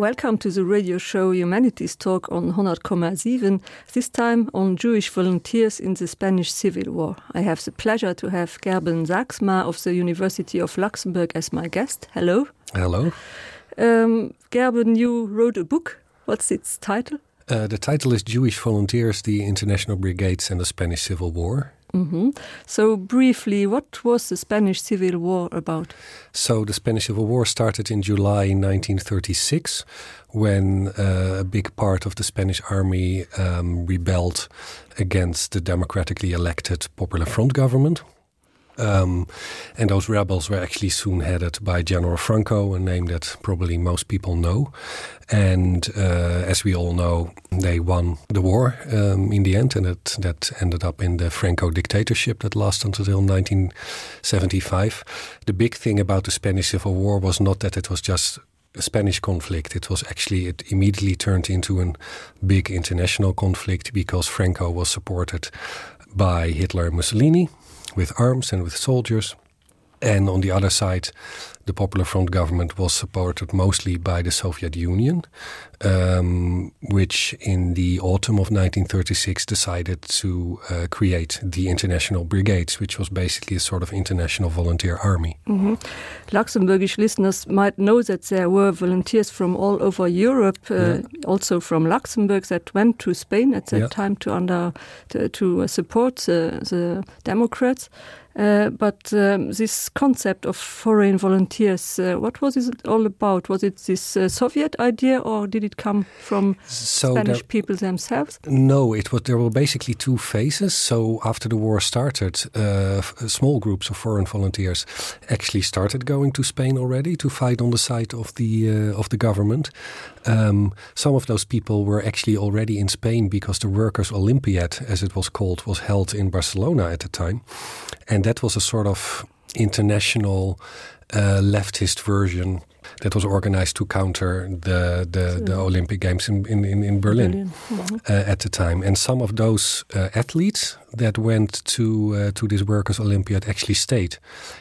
Welcome to the radio show Humanities Talk on 100,7, this time on Jewish volunteers in the Spanish Civil War. I have the pleasure to have Gerben Sachsma of the University of Luxembourg as my guest. Hello. Hello. Um, Gerben, you wrote a book. What's its title? Uh, the title is Jewish Volunteers, the International Brigades and the Spanish Civil War. Mm -hmm. So briefly, what was the Spanish Civil War about? So the Spanish Civil War started in July 1936 when uh, a big part of the Spanish army um, rebelled against the democratically elected Popular Front government. Um, and those rebels were actually soon headed by General Franco, a name that probably most people know. And uh, as we all know, they won the war um, in the end, and it, that ended up in the Franco dictatorship that lasted until 1975. The big thing about the Spanish Civil War was not that it was just a Spanish conflict. It was actually it immediately turned into a big international conflict because Franco was supported by Hitler and Mussolini with arms and with soldiers. And on the other side, the Popular Front government was supported mostly by the Soviet Union, um, which in the autumn of 1936 decided to uh, create the International Brigades, which was basically a sort of international volunteer army. Mm -hmm. Luxembourgish listeners might know that there were volunteers from all over Europe, uh, yeah. also from Luxembourg, that went to Spain at that yeah. time to under to, to support the, the Democrats. Uh, but um, this concept of foreign volunteers, uh, what was it all about? Was it this uh, Soviet idea or did it come from so Spanish there, people themselves? No, it was there were basically two phases. So after the war started, uh, small groups of foreign volunteers actually started going to Spain already to fight on the side of the uh, of the government. Um, some of those people were actually already in Spain because the Workers' Olympiad, as it was called, was held in Barcelona at the time. And that was a sort of international uh, leftist version that was organized to counter the the, the Olympic Games in in, in Berlin, Berlin. Mm -hmm. uh, at the time. And some of those uh, athletes that went to uh, to this Workers' Olympiad actually stayed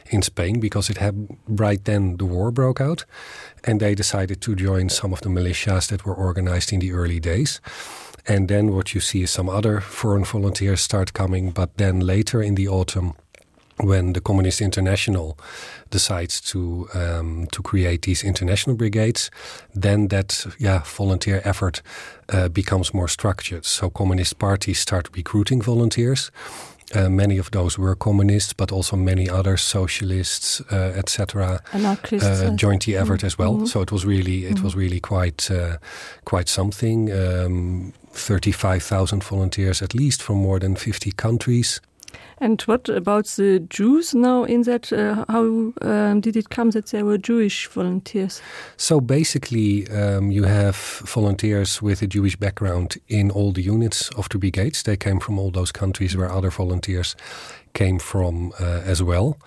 in Spain because it had right then the war broke out, and they decided to join some of the militias that were organized in the early days. And then what you see is some other foreign volunteers start coming, but then later in the autumn, when the Communist International decides to um, to create these international brigades, then that yeah volunteer effort uh, becomes more structured. So communist parties start recruiting volunteers. Uh, many of those were communists, but also many other socialists, uh, etc. Uh, joined the effort mm -hmm. as well. Mm -hmm. So it was really it mm -hmm. was really quite uh, quite something. Um, 35,000 volunteers at least from more than 50 countries. And what about the Jews now in that? Uh, how um, did it come that there were Jewish volunteers? So basically, um, you have volunteers with a Jewish background in all the units of the brigades. They came from all those countries where other volunteers came from uh, as well.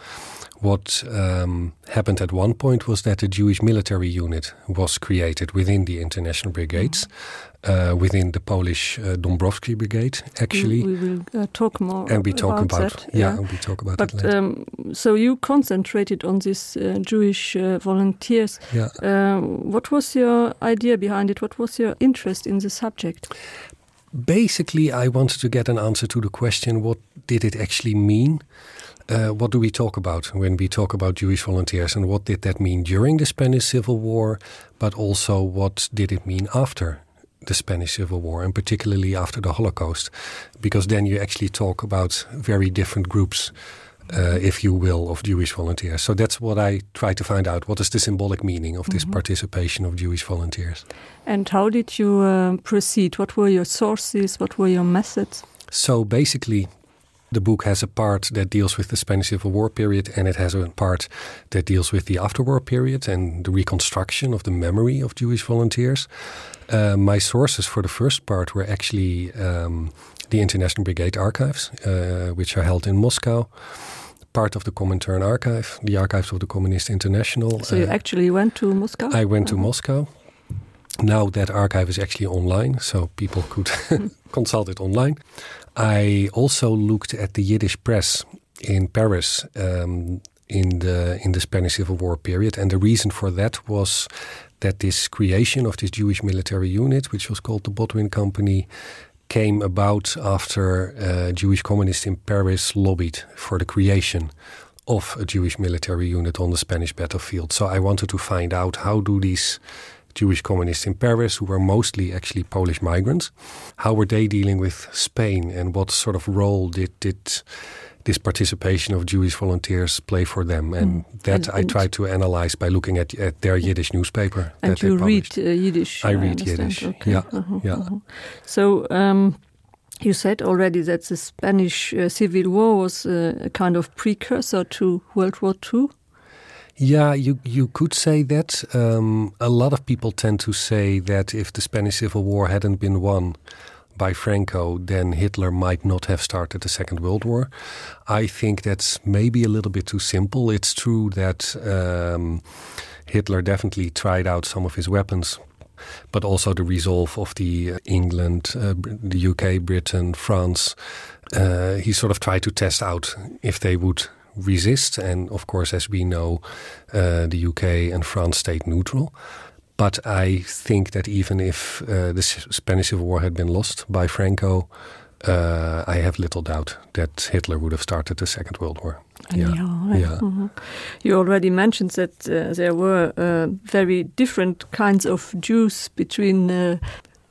What um, happened at one point was that a Jewish military unit was created within the international brigades. Mm -hmm uh, within the Polish uh, Dombrowski Brigade actually we, we will uh, talk more and we talk about, about that, yeah, yeah and we talk about but, um, so you concentrated on this uh, Jewish uh, volunteers yeah. uh, what was your idea behind it what was your interest in the subject basically I wanted to get an answer to the question what did it actually mean uh, what do we talk about when we talk about Jewish volunteers and what did that mean during the Spanish Civil War but also what did it mean after the Spanish Civil War and particularly after the Holocaust, because then you actually talk about very different groups, uh, if you will, of Jewish volunteers. So that's what I try to find out. What is the symbolic meaning of this mm -hmm. participation of Jewish volunteers? And how did you uh, proceed? What were your sources? What were your methods? So basically, the book has a part that deals with the Spanish Civil War period and it has a part that deals with the afterwar period and the reconstruction of the memory of Jewish volunteers. Uh, my sources for the first part were actually um, the International Brigade Archives, uh, which are held in Moscow, part of the Comintern Archive, the archives of the Communist International. So you uh, actually went to Moscow? I went to uh -huh. Moscow. Now that archive is actually online, so people could consult it online. I also looked at the Yiddish press in Paris um, in the in the Spanish Civil War period, and the reason for that was. that this creation of this Jewish military unit, which was called the Botwin Company, came about after uh, Jewish communists in Paris lobbied for the creation of a Jewish military unit on the Spanish battlefield. So I wanted to find out how do these Jewish communists in Paris, who were mostly actually Polish migrants, how were they dealing with Spain and what sort of role did, did this participation of Jewish volunteers play for them? And mm. that and, I tried to analyze by looking at, at their Yiddish newspaper. And you read uh, Yiddish? I, I read Yiddish. Okay. Yeah, uh -huh, yeah. Uh -huh. So um, you said already that the Spanish uh, Civil War was uh, a kind of precursor to World War II. Yeah, you, you could say that. Um, a lot of people tend to say that if the Spanish Civil War hadn't been won by Franco, then Hitler might not have started the Second World War. I think that's maybe a little bit too simple. It's true that um, Hitler definitely tried out some of his weapons, but also the resolve of the uh, England, uh, the UK, Britain, France. Uh, he sort of tried to test out if they would resist. And of course, as we know, uh, the UK and France stayed neutral. But I think that even if uh, the Spanish Civil War had been lost by Franco, uh, I have little doubt that Hitler would have started the Second World War. Yeah. Yeah. Mm -hmm. You already mentioned that uh, there were uh, very different kinds of Jews between uh,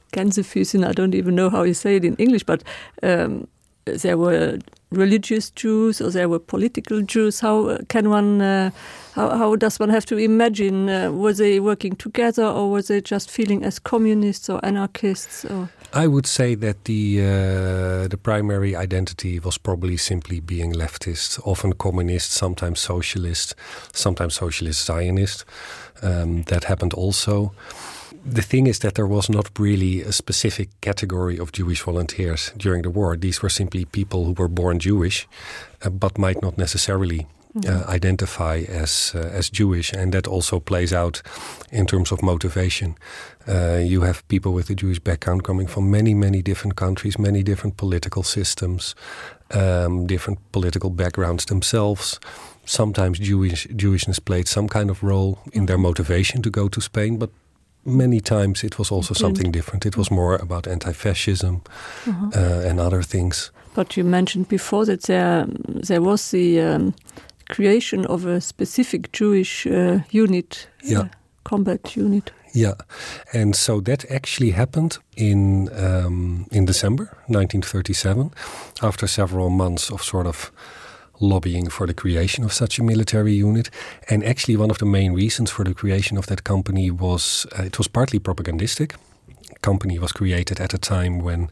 Gänsefüßen. I don't even know how you say it in English, but um, there were religious Jews or there were political Jews. How uh, can one uh, how, how does one have to imagine uh, were they working together or were they just feeling as communists or anarchists or? I would say that the uh, the primary identity was probably simply being leftist, often communist, sometimes socialist, sometimes socialist Zionist. Um, that happened also. The thing is that there was not really a specific category of Jewish volunteers during the war. These were simply people who were born Jewish, uh, but might not necessarily uh, mm-hmm. identify as uh, as Jewish, and that also plays out in terms of motivation. Uh, you have people with a Jewish background coming from many, many different countries, many different political systems, um, different political backgrounds themselves. Sometimes Jewish Jewishness played some kind of role in their motivation to go to Spain, but many times it was also something different. It was more about anti-fascism uh mhm. -huh. uh, and other things. But you mentioned before that there, there was the um, creation of a specific Jewish uh, unit, yeah. uh, combat unit. Yeah, and so that actually happened in, um, in December 1937, after several months of sort of lobbying for the creation of such a military unit. And actually one of the main reasons for the creation of that company was uh, it was partly propagandistic. Company was created at a time when,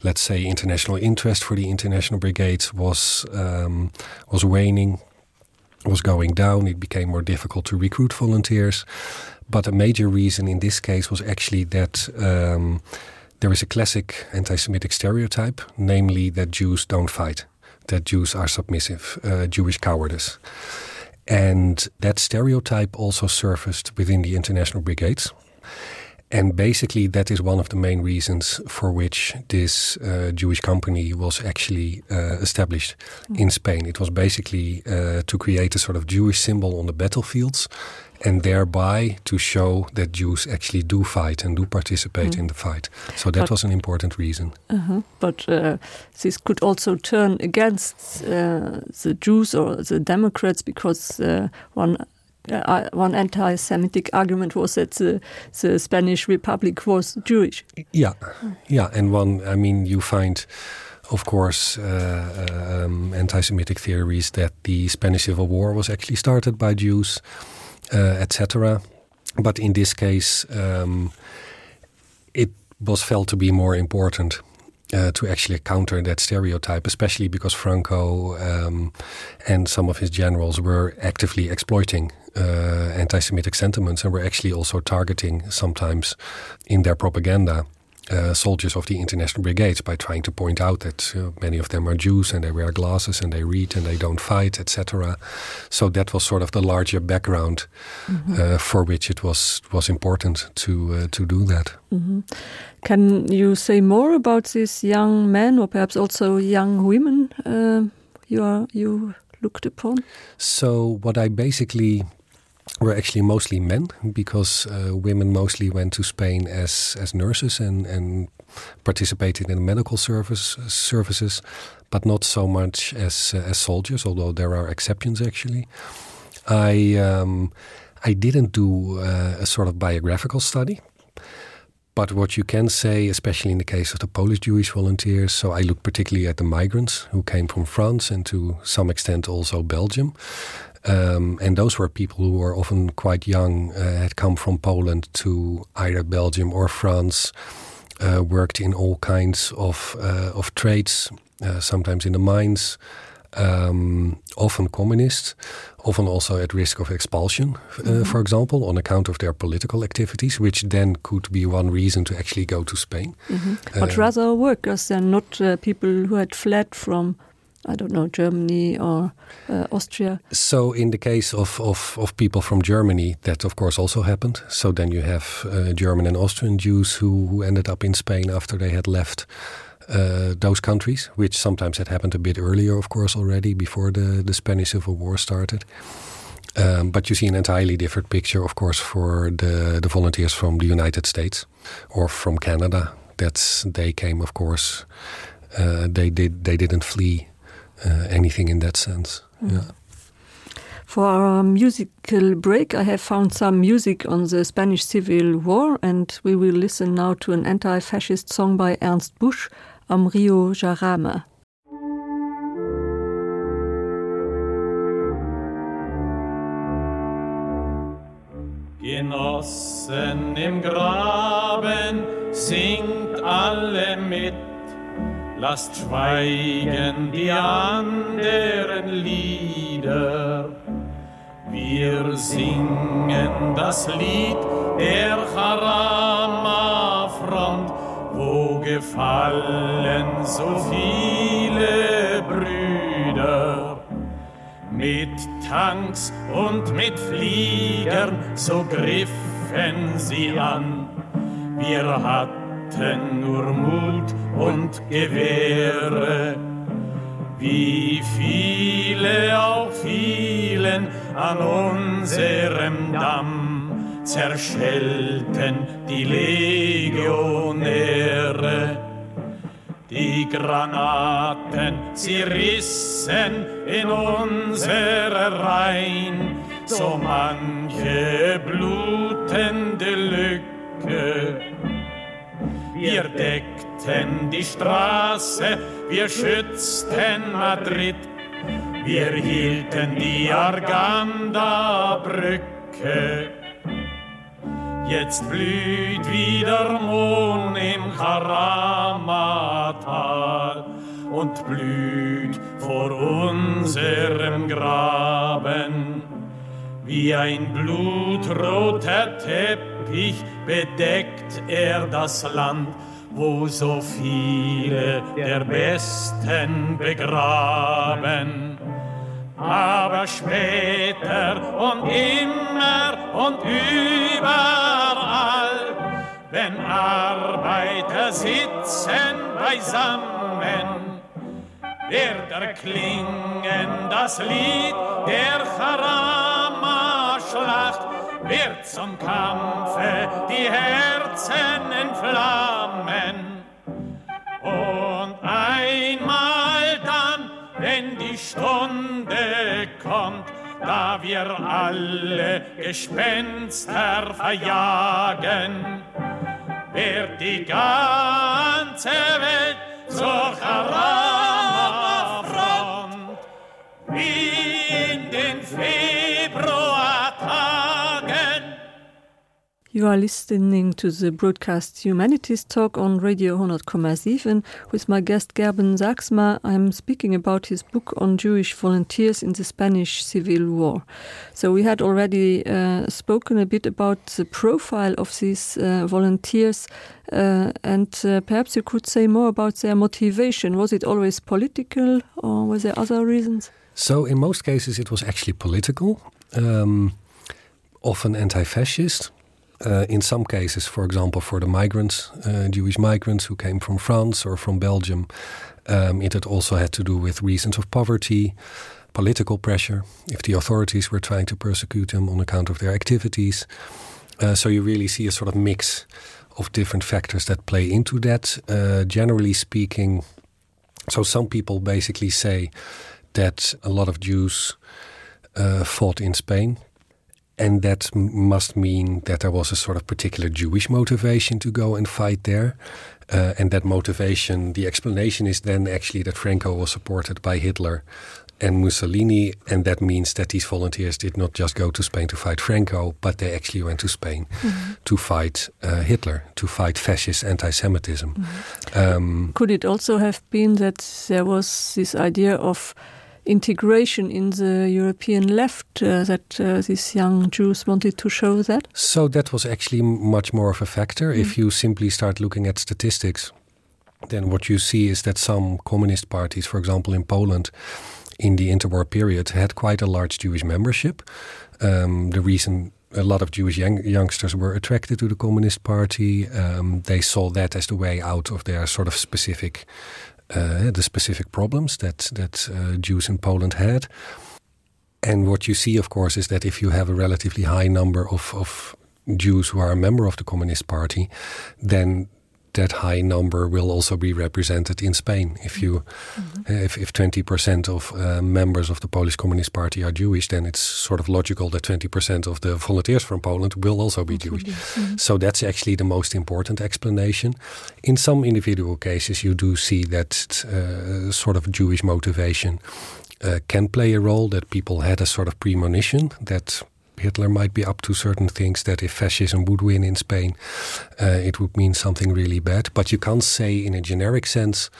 let's say, international interest for the international brigades was, um, was waning, was going down. It became more difficult to recruit volunteers. But a major reason in this case was actually that um, there is a classic anti-Semitic stereotype, namely that Jews don't fight, that Jews are submissive, uh, Jewish cowardice. And that stereotype also surfaced within the international brigades. And basically, that is one of the main reasons for which this uh, Jewish company was actually uh, established mm. in Spain. It was basically uh, to create a sort of Jewish symbol on the battlefields and thereby to show that Jews actually do fight and do participate mm. in the fight. So that but, was an important reason. Uh -huh. But uh, this could also turn against uh, the Jews or the Democrats because uh, one uh, one anti-Semitic argument was that the, the Spanish Republic was Jewish. Yeah, yeah, and one, I mean, you find, of course, uh, um, anti-Semitic theories that the Spanish Civil War was actually started by Jews, uh, etc. But in this case, um, it was felt to be more important uh, to actually counter that stereotype, especially because Franco um, and some of his generals were actively exploiting uh, anti-Semitic sentiments and were actually also targeting sometimes in their propaganda uh, soldiers of the international brigades by trying to point out that uh, many of them are Jews and they wear glasses and they read and they don't fight, etc. So that was sort of the larger background mm -hmm. uh, for which it was was important to uh, to do that. Mm -hmm. Can you say more about these young men or perhaps also young women uh, you are you looked upon? So what I basically were actually mostly men because uh, women mostly went to Spain as as nurses and and participated in medical service services, but not so much as uh, as soldiers, although there are exceptions actually. I um, I didn't do uh, a sort of biographical study. But what you can say, especially in the case of the Polish Jewish volunteers, so I look particularly at the migrants who came from France and to some extent also Belgium. Um, and those were people who were often quite young, uh, had come from Poland to either Belgium or France, uh, worked in all kinds of, uh, of trades, uh, sometimes in the mines, um, often communists, often also at risk of expulsion, mm -hmm. uh, for example, on account of their political activities, which then could be one reason to actually go to Spain. Mm -hmm. But uh, rather workers and not uh, people who had fled from I don't know Germany or uh, Austria. So in the case of, of, of people from Germany, that of course also happened. So then you have uh, German and Austrian Jews who, who ended up in Spain after they had left uh, those countries, which sometimes had happened a bit earlier, of course, already before the, the Spanish Civil War started. Um, but you see an entirely different picture, of course, for the, the volunteers from the United States or from Canada. That's they came, of course, uh, they did they didn't flee uh, anything in that sense. Mm. Yeah. For our musical break, I have found some music on the Spanish Civil War, and we will listen now to an anti-fascist song by Ernst Busch, Am Rio Jarama. Genossen im Graben singt alle mit, Lasst schweigen die anderen Lieder. Wir singen das Lied der Haramafront, wo gefallen so viele Brüder. Mit Tanks und mit Fliegern, so griffen sie an. Wir hatten nur Mut und Gewehre. Wie viele auch fielen an unserem Damm, zerschellten die Legionäre. Die Granaten, sie rissen in unsere Reihen so manche blutende Lücke. Wir deckten die Straße, wir schützten Madrid, wir hielten die Arganda-Brücke. Jetzt blüht wieder Mohn im Karamatal und blüht vor unserem Graben. Wie ein blutroter Teppich bedeckt er das Land, wo so viele der Besten begraben. Aber später und immer und überall, wenn Arbeiter sitzen beisammen, wird erklingen das Lied der Charama-Schlacht, wird zum Kampfe die Herzen entflammen. Und einmal dann, wenn die Stunde kommt, da wir alle Gespenster verjagen, wird die ganze Welt zur Haramafront wie in den Februartagen. You are listening to the broadcast Humanities Talk on Radio 100,7 with my guest Gerben Saxma. I'm speaking about his book on Jewish volunteers in the Spanish Civil War. So we had already uh, spoken a bit about the profile of these uh, volunteers uh, and uh, perhaps you could say more about their motivation. Was it always political or were there other reasons? So in most cases it was actually political, um, often anti-fascist. Uh, in some cases, for example, for the migrants, uh, Jewish migrants who came from France or from Belgium, um, it had also had to do with reasons of poverty. political pressure, if the authorities were trying to persecute them on account of their activities. Uh, so you really see a sort of mix of different factors that play into that. Uh, generally speaking, so some people basically say that a lot of Jews uh, fought in Spain. And that must mean that there was a sort of particular Jewish motivation to go and fight there. Uh, and that motivation, the explanation is then actually that Franco was supported by Hitler and Mussolini. And that means that these volunteers did not just go to Spain to fight Franco, but they actually went to Spain mm -hmm. to fight uh, Hitler, to fight fascist anti-Semitism. Mm -hmm. um, Could it also have been that there was this idea of integration in the European left uh, that uh, these young Jews wanted to show that? So that was actually much more of a factor. Mm -hmm. If you simply start looking at statistics, then what you see is that some communist parties, for example in Poland, in the interwar period had quite a large Jewish membership. Um, the reason a lot of Jewish young youngsters were attracted to the Communist Party, um, they saw that as the way out of their sort of specific uh, the specific problems that that uh, Jews in Poland had. And what you see, of course, is that if you have a relatively high number of, of Jews who are a member of the Communist Party, then that high number will also be represented in Spain. If you mm -hmm. if, if 20% of uh, members of the Polish Communist Party are Jewish, then it's sort of logical that 20% of the volunteers from Poland will also be Jewish. Mm -hmm. So that's actually the most important explanation. In some individual cases, you do see that uh, sort of Jewish motivation uh, can play a role, that people had a sort of premonition that Hitler might be up to certain things that if fascism would win in Spain, uh, it would mean something really bad. But you can't say in a generic sense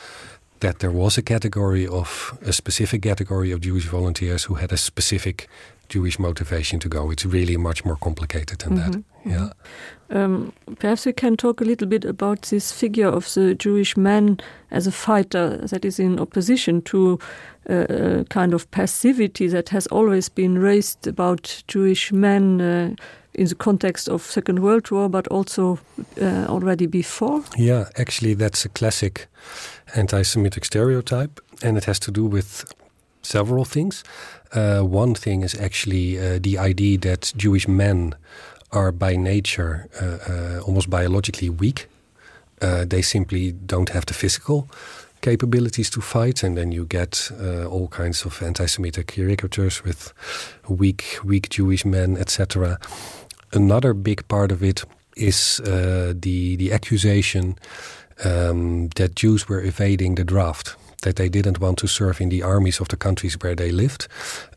that there was a category of a specific category of Jewish volunteers who had a specific Jewish motivation to go. It's really much more complicated than mm -hmm. that. Mm-hmm. Yeah. Um, perhaps we can talk a little bit about this figure of the Jewish man as a fighter that is in opposition to uh, a kind of passivity that has always been raised about Jewish men uh, in the context of Second World War, but also uh, already before. Yeah, actually that's a classic anti-Semitic stereotype, and it has to do with several things. Uh, one thing is actually uh, the idea that Jewish men are by nature uh, uh, almost biologically weak. Uh, they simply don't have the physical capabilities to fight, and then you get uh, all kinds of anti-Semitic caricatures with weak, weak Jewish men, etc. Another big part of it is uh, the, the accusation um, that Jews were evading the draft that they didn't want to serve in the armies of the countries where they lived.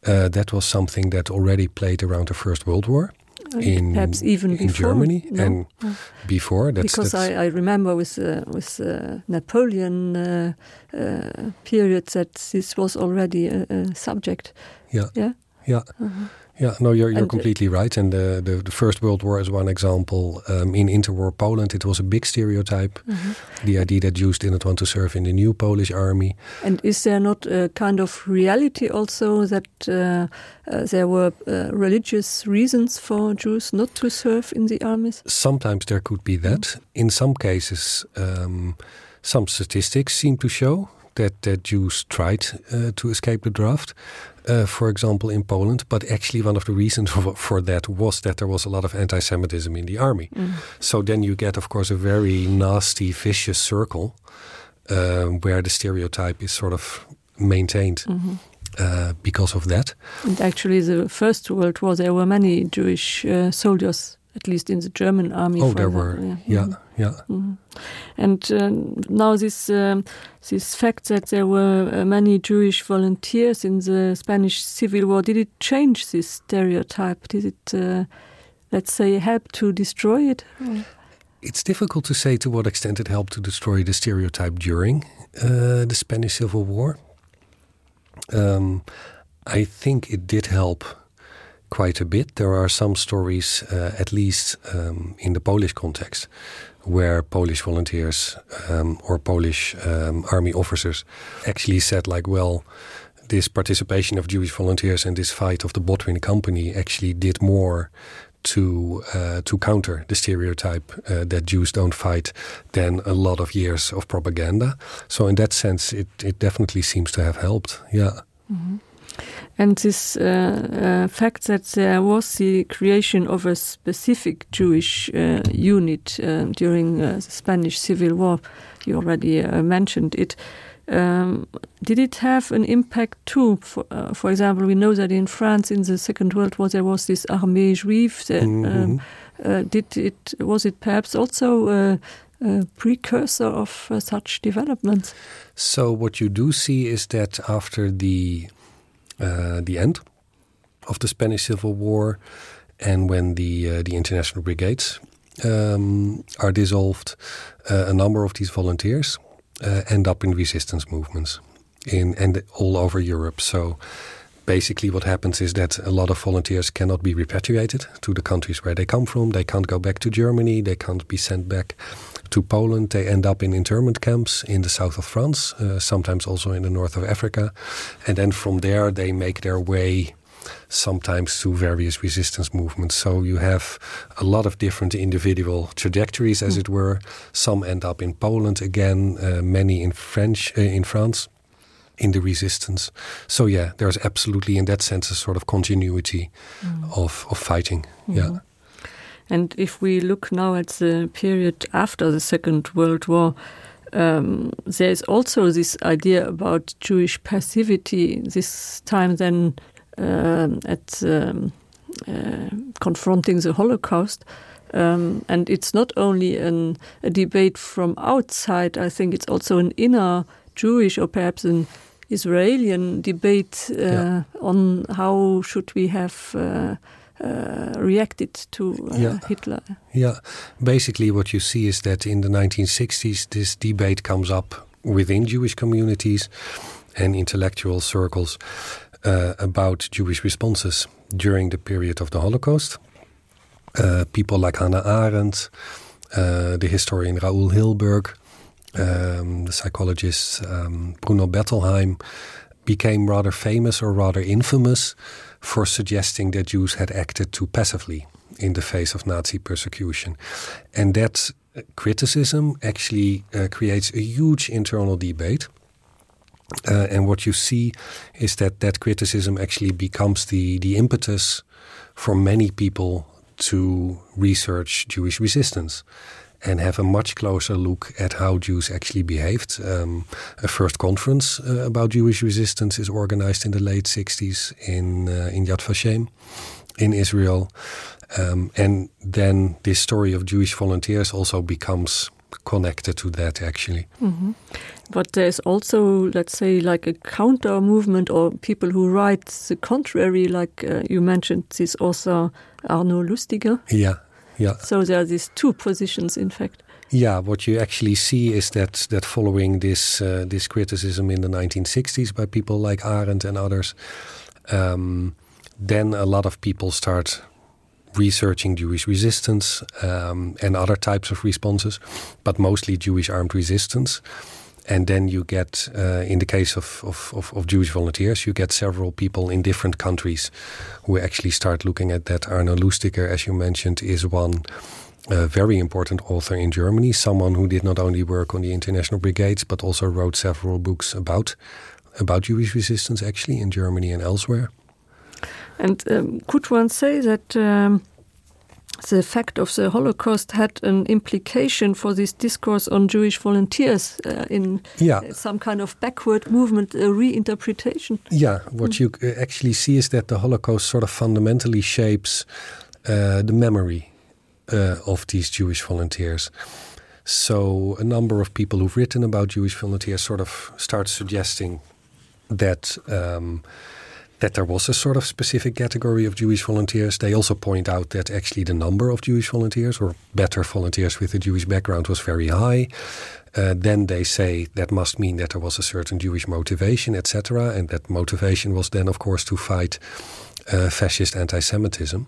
Uh, that was something that already played around the First World War in perhaps even in Germany no? and oh. before that's, because that's I, I remember with uh, with uh, Napoleon uh, uh, period that this was already a, a subject yeah yeah yeah mm -hmm. Yeah, no, you're, you're and, uh, completely right. And the, the, the First World War is one example. Um, in interwar Poland, it was a big stereotype, mm -hmm. the idea that Jews didn't want to serve in the new Polish army. And is there not a kind of reality also that uh, uh, there were uh, religious reasons for Jews not to serve in the armies? Sometimes there could be that. Mm -hmm. In some cases, um, some statistics seem to show that, that Jews tried uh, to escape the draft uh, for example, in Poland. But actually, one of the reasons for, for that was that there was a lot of anti-Semitism in the army. Mm. So then you get, of course, a very nasty, vicious circle uh, where the stereotype is sort of maintained. Mm -hmm. Uh, because of that. And actually, the First World War, there were many Jewish uh, soldiers at least in the German army. Oh, there were. Yeah, yeah. Mm -hmm. yeah. Mm -hmm. And uh, now this, um, this fact that there were uh, many Jewish volunteers in the Spanish Civil War, did it change this stereotype? Did it, uh, let's say, help to destroy it? Mm. It's difficult to say to what extent it helped to destroy the stereotype during uh, the Spanish Civil War. Um, I think it did help quite a bit. There are some stories, uh, at least um, in the Polish context, where Polish volunteers um, or Polish um, army officers actually said like, well, this participation of Jewish volunteers and this fight of the Botwin company actually did more to uh, to counter the stereotype uh, that Jews don't fight than a lot of years of propaganda. So in that sense, it, it definitely seems to have helped. Yeah. Mm -hmm. And this uh, uh, fact that there was the creation of a specific Jewish uh, unit uh, during uh, the Spanish Civil War, you already uh, mentioned it. Um, did it have an impact too? For, uh, for example, we know that in France in the Second World War there was this Armée juive. That, mm -hmm. um, uh, did it, was it perhaps also uh, a precursor of uh, such developments? So what you do see is that after the, uh, the end of the Spanish Civil War and when the, uh, the international brigades um, are dissolved, uh, a number of these volunteers uh, end up in resistance movements in and all over Europe. So basically what happens is that a lot of volunteers cannot be repatriated to the countries where they come from. They can't go back to Germany, they can't be sent back to Poland. They end up in internment camps in the south of France, uh, sometimes also in the north of Africa. And then from there they make their way sometimes to various resistance movements. So you have a lot of different individual trajectories, as mm. it were. Some end up in Poland again, uh, many in French uh, in France in the resistance. So yeah, there's absolutely in that sense a sort of continuity mm. of, of fighting. Mm -hmm. Yeah. And if we look now at the period after the Second World War, um, there is also this idea about Jewish passivity this time then um, at um, uh, confronting the Holocaust. Um, and it's not only an, a debate from outside, I think it's also an inner Jewish or perhaps an Israeli debate uh, yeah. on how should we have uh, uh, reacted to uh, yeah. Hitler. Yeah, basically what you see is that in the 1960s this debate comes up within Jewish communities and intellectual circles uh, about Jewish responses during the period of the Holocaust. Uh, people like Hannah Arendt, uh, the historian Raoul Hilberg, um, the psychologist um, Bruno Bettelheim became rather famous or rather infamous for suggesting that Jews had acted too passively in the face of Nazi persecution. And that criticism actually uh, creates a huge internal debate. Uh, and what you see is that that criticism actually becomes the, the impetus for many people to research Jewish resistance and have a much closer look at how Jews actually behaved. Um, a first conference uh, about Jewish resistance is organized in the late 60s in, uh, in Yad Vashem in Israel. Um, and then this story of Jewish volunteers also becomes connected to that actually. Mm -hmm. But there's also, let's say, like a counter movement or people who write the contrary, like uh, you mentioned this author Arno Lustiger. Yeah, yeah. So there are these two positions, in fact. Yeah, what you actually see is that that following this uh, this criticism in the 1960s by people like Arendt and others, um, then a lot of people start researching Jewish resistance um, and other types of responses, but mostly Jewish armed resistance. And then you get, uh, in the case of, of, of, of Jewish volunteers, you get several people in different countries who actually start looking at that. Arno Lustiger, as you mentioned, is one uh, very important author in Germany, someone who did not only work on the international brigades, but also wrote several books about, about Jewish resistance actually in Germany and elsewhere. And um, could one say that um, the fact of the Holocaust had an implication for this discourse on Jewish volunteers uh, in yeah. some kind of backward movement, a reinterpretation? Yeah, what mm. you uh, actually see is that the Holocaust sort of fundamentally shapes uh, the memory uh, of these Jewish volunteers. So a number of people who've written about Jewish volunteers sort of start suggesting that um, that there was a sort of specific category of Jewish volunteers. They also point out that actually the number of Jewish volunteers or better volunteers with a Jewish background was very high. Uh, then they say that must mean that there was a certain Jewish motivation, etc. And that motivation was then, of course, to fight uh, fascist anti-Semitism.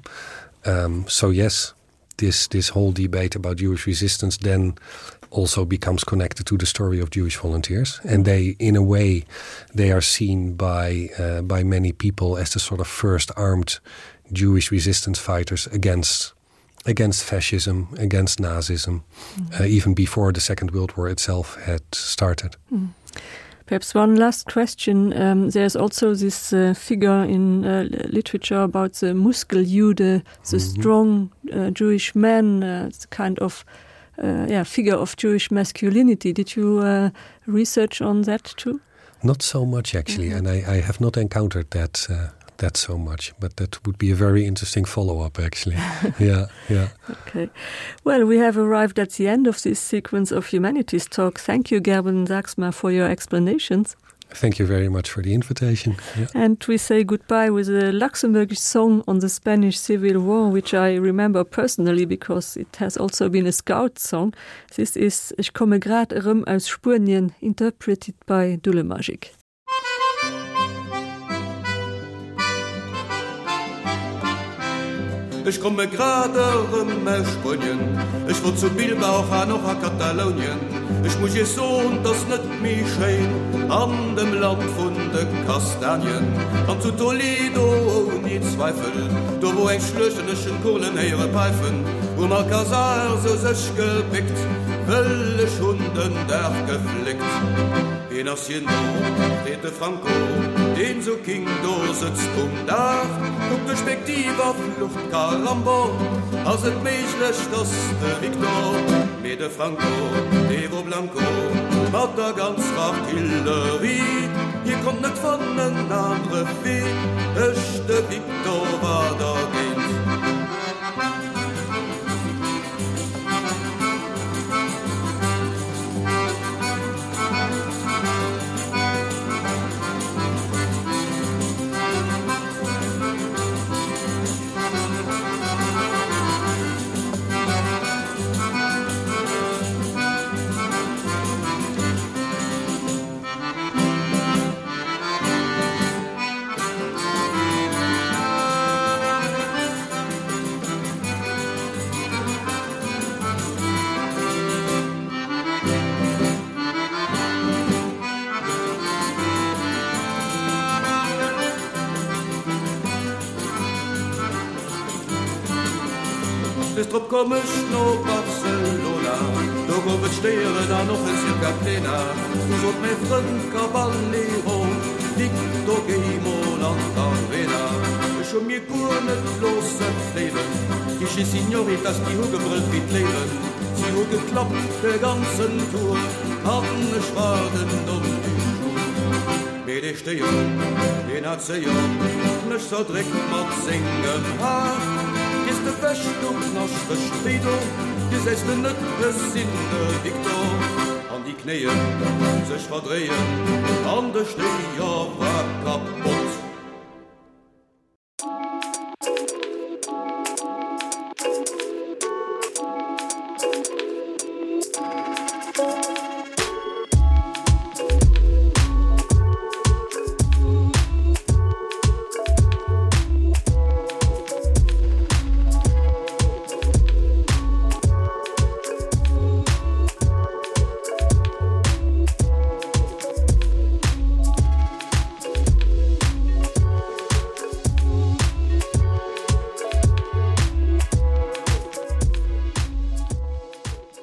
Um, so yes, this, this whole debate about Jewish resistance then also becomes connected to the story of Jewish volunteers. And they, in a way, they are seen by, uh, by many people as the sort of first armed Jewish resistance fighters against against fascism, against Nazism, mm. uh, even before the Second World War itself had started. Mm. Perhaps one last question. Um, there's also this uh, figure in uh, literature about the Muskeljude, the mm -hmm. strong uh, Jewish man, uh, the kind of uh, yeah, figure of Jewish masculinity. Did you uh, research on that too? Not so much actually, mm -hmm. and I, I have not encountered that uh, that so much, but that would be a very interesting follow-up actually. yeah, yeah. Okay. Well, we have arrived at the end of this sequence of humanities talk. Thank you, Gerben Saxma, for your explanations. Thank you very much for the invitation. Yeah. And we say goodbye with a Luxembourgish song on the Spanish Civil War, which I remember personally because it has also been a scout song. This is Ich komme grad erëm aus Spuenien, interpreted by Dullemagic. Ech komme grad erëm aus Spuenien, ech wor zu Bilbao an och a Katalounien. Ech muss iech soen, 't ass net méi schéin an dem Land vun de Kastanien. An zu Toledo ouni Zweifel, do wor eng Schluecht an ech hunn d'Kurlen héiere päifen. Um Alcazar sou sech gebéckt, wëll ech hunn den Dag gefléckt. Wien ass hien do? freet de Franco, deen sou king do sëtzt um Daach. Kuckt duerch Spektiv a flucht, Caramba, ass et méiglech, dass de Victor? Mee de Franco, dee wor blanco mat der ganzer Artillerie, hie konnt net fannen anere wéi ech, de Victor war dergéint. Des drop komm ech no Barcelona, do gouf et Stéieren an och en Circa Plena. Du sot mäi Frënd Caballero, Victor géi mol an d'Arena. Ech hu mir guer net loosse fléiwen, déi schéi Signoritas déi hu gebrëllt wéi d'Léiwen. Si hu geklappt de ganzen Tour an ech war den Homme du jour. Mee dee Stéier, deen hat séier mech zerdréckt mat sengem Har. Gees de wech, du knaschtegt wéi do, gesäis de net, ech sinn de Victor. An déi Knéien sech verdréien an de Stéier war kapott.